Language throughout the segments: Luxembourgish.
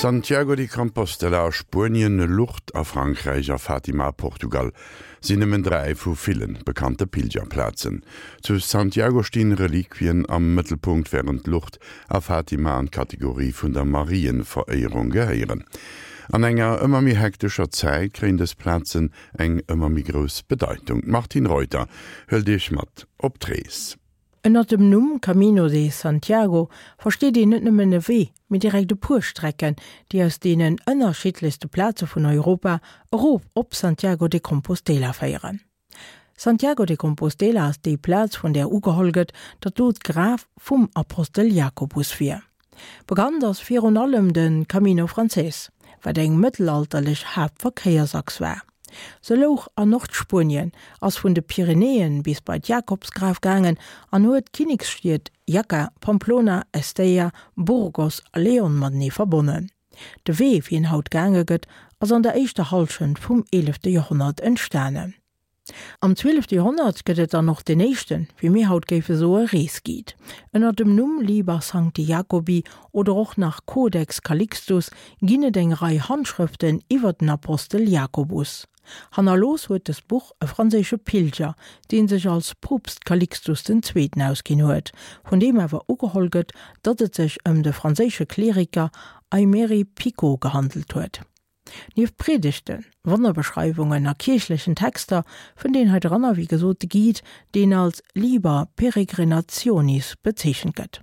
Santiago de Compostela a Spuenien, Lourdes a Frankräich a Fatima a Portugal sinn nëmmen 3 vu ville bekannte Pilgerplazen. Zu Santiago stinn Reliquien am Mëttelpunkt, wärend Lourdes a Fatima an d'Kategorie vun der Marienveréierung gehéieren. An enger ëmmer méi hektescher Zäit kréien dës Plazen eng ëmmer méi grouss Bedeitung. D'Martine Reuter hëlt Iech mat op d'Rees. Ënnert dem Numm Camino de Santiago versteet een net nëmmen e Wee, mee direkt e puer Strecken, déi aus deenen ënnerschiddlechste Plaze vun Europa erof op Santiago de Compostela féieren. Santiago de Compostela ass déi Plaz, vun där ugeholl gëtt, datt do d'Graf vum Apostel Jakobus wier. Bekannt ass virun allem de Camino Francés, wat eng mëttelalterlech Haaptverkéiersachs war. Se louch an Nordspuenien, ass vun de Pyrenäen bis bei d'Jakobsgraf gaangen an huet d'Kinneksstied Jaca, Pamplona, Estella, Burgos a León matenee verbonnen. De Wee, wéi en haut gaange gëtt, ass an der éischter Hallschent vum eelefte Joerhonnert entstanen. Am zwielefte Joerhonnert gëtt et dann och deen éischten, wéi mir haut géife soe Reesguide. Ënner dem Numm Liber Sancti Jacobi oder och nach Codex Calixtus ginn et eng Rei Handschrëften iwwer den Apostel Jakobus. Hannerlooss huet dëst Buch e franséische Pilger, dee sech als Poopst Calixtus den Zweeten ausginn huet, vun deem awer ugeholl gëtt, datt et sech ëm de franséische Kleriker Aymeri Picot gehandelt huet. Nieft Priedegten, Wonnerbeschreiwungen a kierchlechen Texter fënnt een hei dranner wéi gesot de Guide, deen als Liber Peregrinationis bezeechent gëtt.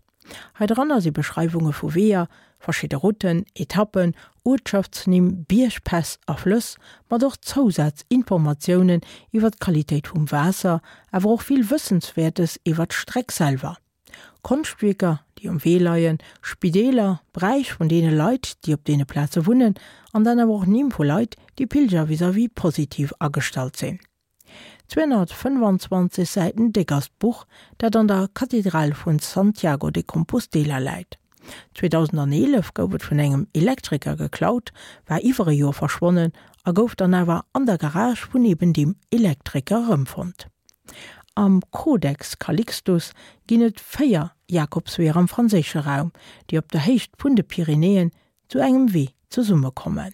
Hei dranner si Beschreiwunge vu Weeër, verschidde Routen, Etappen, Uertschaftsnimm, Biergpäss a Flëss, mat och Zousazinformatiounen iwwer d'Qualitéit vum Waasser, awer och vill Wëssenswäertes iwwer d'Streck selwer. Konschtwierker, déi um Wee leien, Spideeler, Bräich vun deene Leit, déi op deene Plaze wunnen, an dann awer och Nimm vu Leit, déi Pilger vis-à-vis positiv agestallt sinn. 225 Säiten déck ass d'Buch, dat an der Kathedral vun Santiago de Compostela läit. 2011 gouf et vun engem Elektriker geklaut, war iwwer e Joer verschwonnen a gouf dann awer an der Garage vun eben deem Elektriker erëmfonnt. Am Codex Calixtus ginn et 4 Jakobsweeër am franséische Raum, déi op der Héicht vun de Pyrenäen zu engem Wee zesummekommen.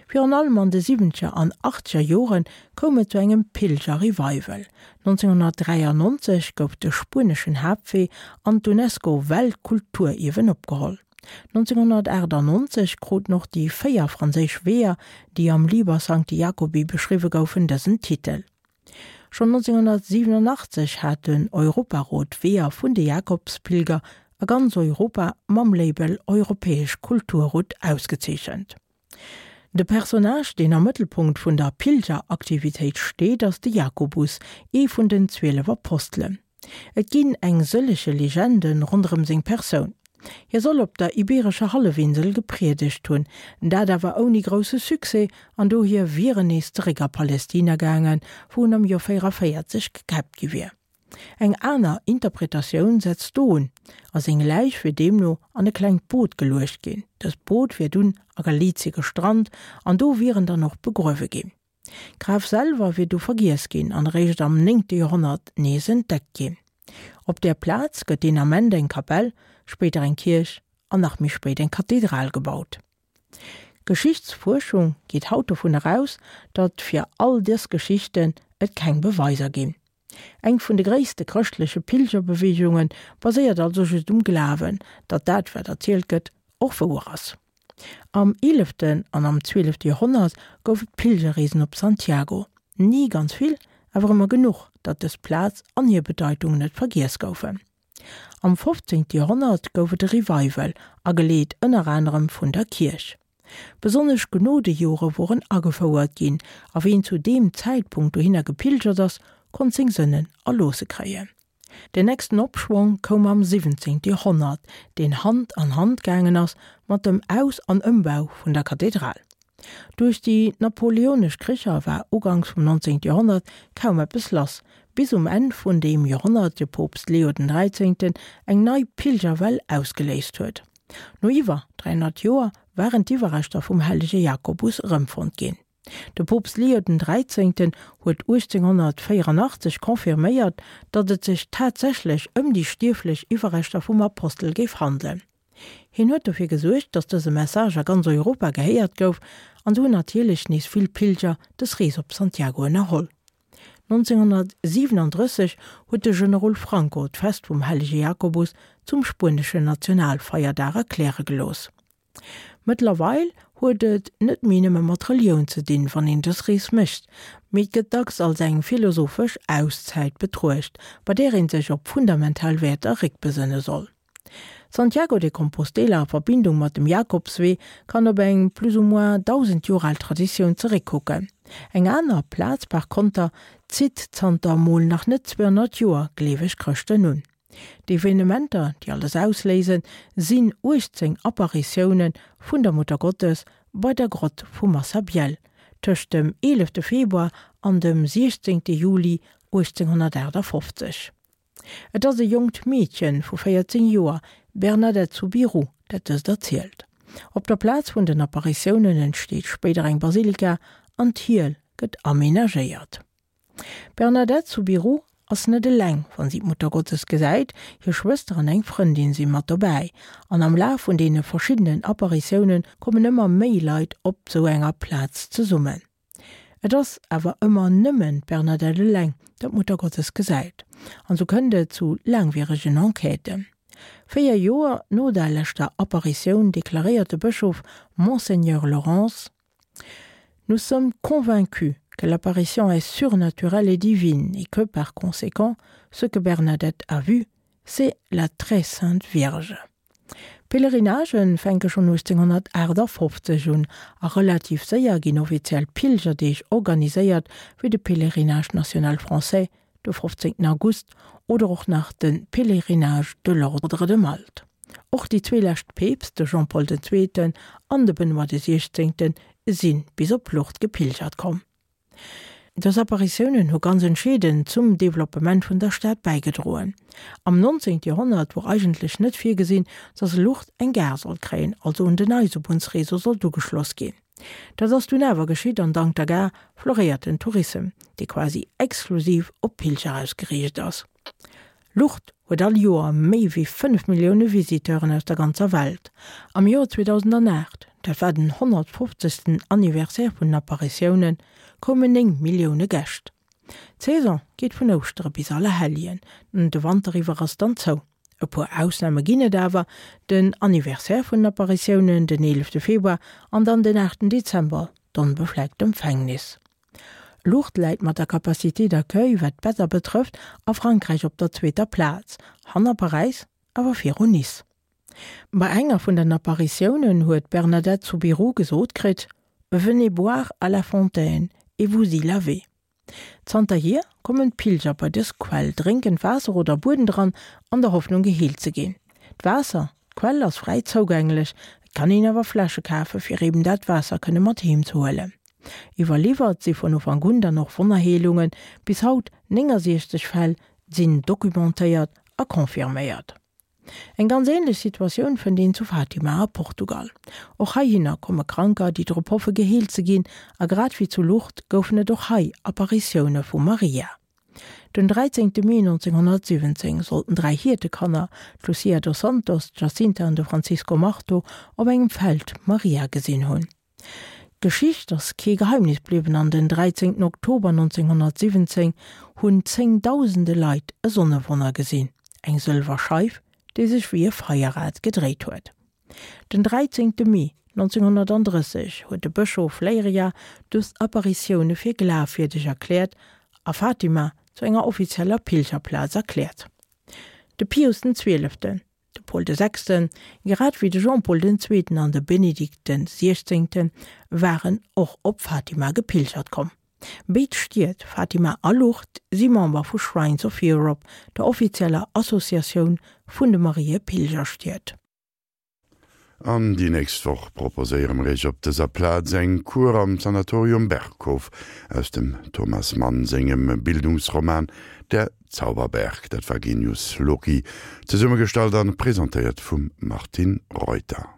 Virun allem an de siwwenzeger an achtzeger Jore koum et zu engem Pilger-Revival. 1993 gouf de spueneschen Haaptwee an d'UNESCO-Weltkulturierwen opgeholl. 1998 kruten och déi 4 franséisch Weeër, déi am Liber Sancti Jacobi beschriwwe goufen, dësen Titel. Schonn 1987 hat den Europarot d'Weeër vun de Jakobspilger a ganz Europa mam Label Europäesch Kulturroute ausgezeechent. De Personnage, deen am Mëttelpunkt vun der Pilgeraktivitéit steet, ass de Jakobus, ee vun den 12 Apostelen. Et ginn eng sëllege Legende ronderëm seng Persoun. Hie soll op der Ibeerescher Hallefinsel gepriedegt hunn, dat awer ouni grousse Succès, an dohier wier en nees zeréck a Palestina gaangen, wou en am Joer 44 gekäppt gi wier. Eng aner Interpretatioun setzt do un, a seng Läich wier deemno an e klengt Boot geluecht ginn. Dëst Boot wier dunn a Galizie gestrant an do wier en dann och begruewe ginn. D'Graf selwer wier du vergiess ginn an eréischt am néngte Joerhonnert nees entdeckt ginn. Op där Plaz gëtt deen Ament eng Kapell, spéider eng Kierch an nach méi spéit eng Kathedral gebaut. D'Geschichtsfuerschung geet haut dovun eraus, datt fir all dës Geschichten et keng Beweiser ginn. Eng vun de gréisste chrëschtleche Pilgerbeweegunge baséiert also just um Glawen, datt dat wat erzielt gëtt och wouer ass. Am eeleften an am zwielefte Joerhonnert gouf et Pilgerreesen op Santiago. Ni ganz vill, awer ëmmer genuch, datt dës Plaz an hir Bedeitung net vergiess goufen. Am fofzéngte Joerhonnert gouf et e Revival, ageleet ënner anerem vun der Kierch. Besonnesch Genodejore woren agefouert ginn, a ween zu deem Zäitpunkt dohinner gepilgert ass, konnt seng Sënnen erloosse kréien. Den nächsten Opschwong koum am 17. Joerhonnert, deen Hand an Hand gaangen ass mat dem Aus an Ëmbau vun der Kathedral. Duerch déi napoleonesch Kricher war uganks vum 19. Joerhonnert kaum eppes lass, bis um Enn vun deem Joerhonnert de Poopst Leo den Dräizéngten eng nei Pilgerwell ausgeléist huet. No iwwer 300 Joer waren d'Iwwerreschter vum hellege Jakobus erëmfonnt ginn. De Poopst Leo den Dräizéngten huet 1884 confirméiert, datt et sech tatsächlech ëm déi stierflech Iwwerreschter vum Apostel géif handelen. Hien huet dofir gesuergt, datt dëse Message a ganz Europa gehéiert gouf, an sou hunn natierlech nees vill Pilger dës Rees op Santiago ënnerholl. 1937 huet de Generol Franco d'Fest vum Hellege Jakobus zum spueneschen Nationalfeierdag erkläre gelooss. Mëttlerweil huet et net méi nëmme mat Relioun ze dinn, wann een dës Rees mécht, mee et gëtt dacks als eng philosophesch Auszäit betruecht, bei där ee sech op fundamental Wäerter réckbesënne soll. Santiago de Compostela a Verbindung mat dem Jakobswee kann op eng plus ou moins 1.000 Joer al Traditioun zeréckkucken. Eng aner Plaz par konter zitt zanter mol nach net 200 Joer gleeweg Chrëschten un. D'Evenementer, déi alles ausléisen, sinn 18 Apparitioune vun der Muttergottes bei der Grott vu Massabielle tëscht dem 11 Februar an dem 16 Juli 1858. Et ass e jonkt Meedche vu 14 Joer, Bernadette Soubirous, dat dëst erzielt. Op der Plaz vun den Apparitiounen entsteet spéider eng Basilika an d'Hiel gëtt amenagéiert. D'Bernadette Soubirous ass net eleng, wann si d'Muttergottes gesäit, hir Schwëster an eng Frëndin si mat dobäi. An am Laf vun deene verschiddenen Apparitioune kommen ëmmer méi Leit op sou enger Plaz zesummen. Et ass awer ëmmer nëmmen d'Bernadette eleng, dat d'Muttergottes gesäit. An sou kënnt et zu laangwieregen Enquêten. 4 Joer no der leschter Apparitioun deklaréiert de Bëschof Monseigneur Laurence, Nous sommes convaincus que l'apparition est surnaturelle et divine et que, par conséquent, ce que Bernadette a vu, c'est la très sainte Vierge. D'Pèlerinagen fänke schonn 1858 un a relativ séier ginn offiziell Pilgerdeeg organiséiert, wéi de Pèlerinage national français de 15 August oder och nach de Pèlerinage de l'Ordre de Malte. Och déi zwee lescht Peepst, de Jean-Paul den Zweeten an de Benoît de Siechzéngten, si bis op Lourdes gepilgert komm. Dës Apparitiounen hu ganz entscheedend zum Developpement vun der Stad bäigedroen. Am 19. Joerhonnert wor eigentlech net virgesinn, datt Lourdes eng Gare sollt kréien, also un den Eisebunnsreseau sollt ugeschloss ginn. Dat ass dunn awer geschitt an dank der Gare floréiert den Tourissem, dee quasi exklusiv op Pilger ausgeriicht ass. Lourdes huet all Joer méi wéi 5 Millioune Visiteuren aus der ganzer Welt. Am Joer 2008, dat war den 150. Anniversaire vun den Apparitiounen, koumen 9 Millioune Gäscht. D'Saison geet vun Ouschtere bis Allerhelljen, de Wanter iwwer ass dann zou. E puer Ausname ginn et awer, den Anniversaire vun den Apparitiounen, den 11 Februar, an dann den 8 Dezember, d'Onbefleckt Empfängnis. Lourdes läit mat der Capacité d'accueil, wat d'Better betrëfft, a Frankräich op der zweeter Plaz, hanner Paräis, awer viru Nice. Bei enger vun den Apparitiounen huet d'Bernadette Soubirous gesot kritt, Venez boire à la fontaine et vous y lavez. Zanterhier kommen d'Pilger bei dës Quell, drénken d'Waasser oder bueden dran, an der Hoffnung geheelt ze ginn. D'Waasser, d'Quell ass fräi zougänglech, et kann een awer Fläsche kafe fir eben dat Waasser kënne mat heem ze huelen. Iwwerliwwert si vun Ufank un dann och Wonnerheelungen, bis haut 69 Fäll sinn documentéiert a confirméiert. Eng ganz änlech Situatioun fënnt een zu Fatima a Portugal. Och heihinner komme Kranker, déi drop hoffe geheelt ze ginn, a grad wéi zu Lourdes goufen et och hei Apparitioune vu Maria. Den 13 Mee 1917 sollten dräi Hiertekanner, d'Lucia dos Santos, d'Jacinta an de Francisco Marto, op engem Feld Maria gesinn hunn. D'Geschicht ass kee Geheimnis bliwwen an den 13 Oktober 1917 hunn zéngdausende Leit e Sonnewonner gesinn, eng sëlwer Scheif, déi sech wéi e Feierrad gedréit huet. Den 13 Mee 1930 huet de Bëschof Leiria dës Apparitioune fir glafwierdeg erkläert a Fatima zu enger offizieller Pilgerplaz erkläert. De Pius den Zwieleften De Paul de Sechsten, grad wéi de Jean-Paul den Zweeten an de Benedikt den Siechzéngten, waren och op Fatima gepilgert komm. Béid Stied, Fatima a Lourdes, si Member vu Shrines of Europe, der offizieller Associatioun vun de Mariepilgerstied. An déi nächst Woch proposéiere mer Iech op dëser Plaz eng Kur am Sanatorium Berghof aus dem Thomas Mann sengem Bildungsroman Der Zauberberg. Dat war Genius Loci, zesummegestallt an presentéiert vum Martine Reuter.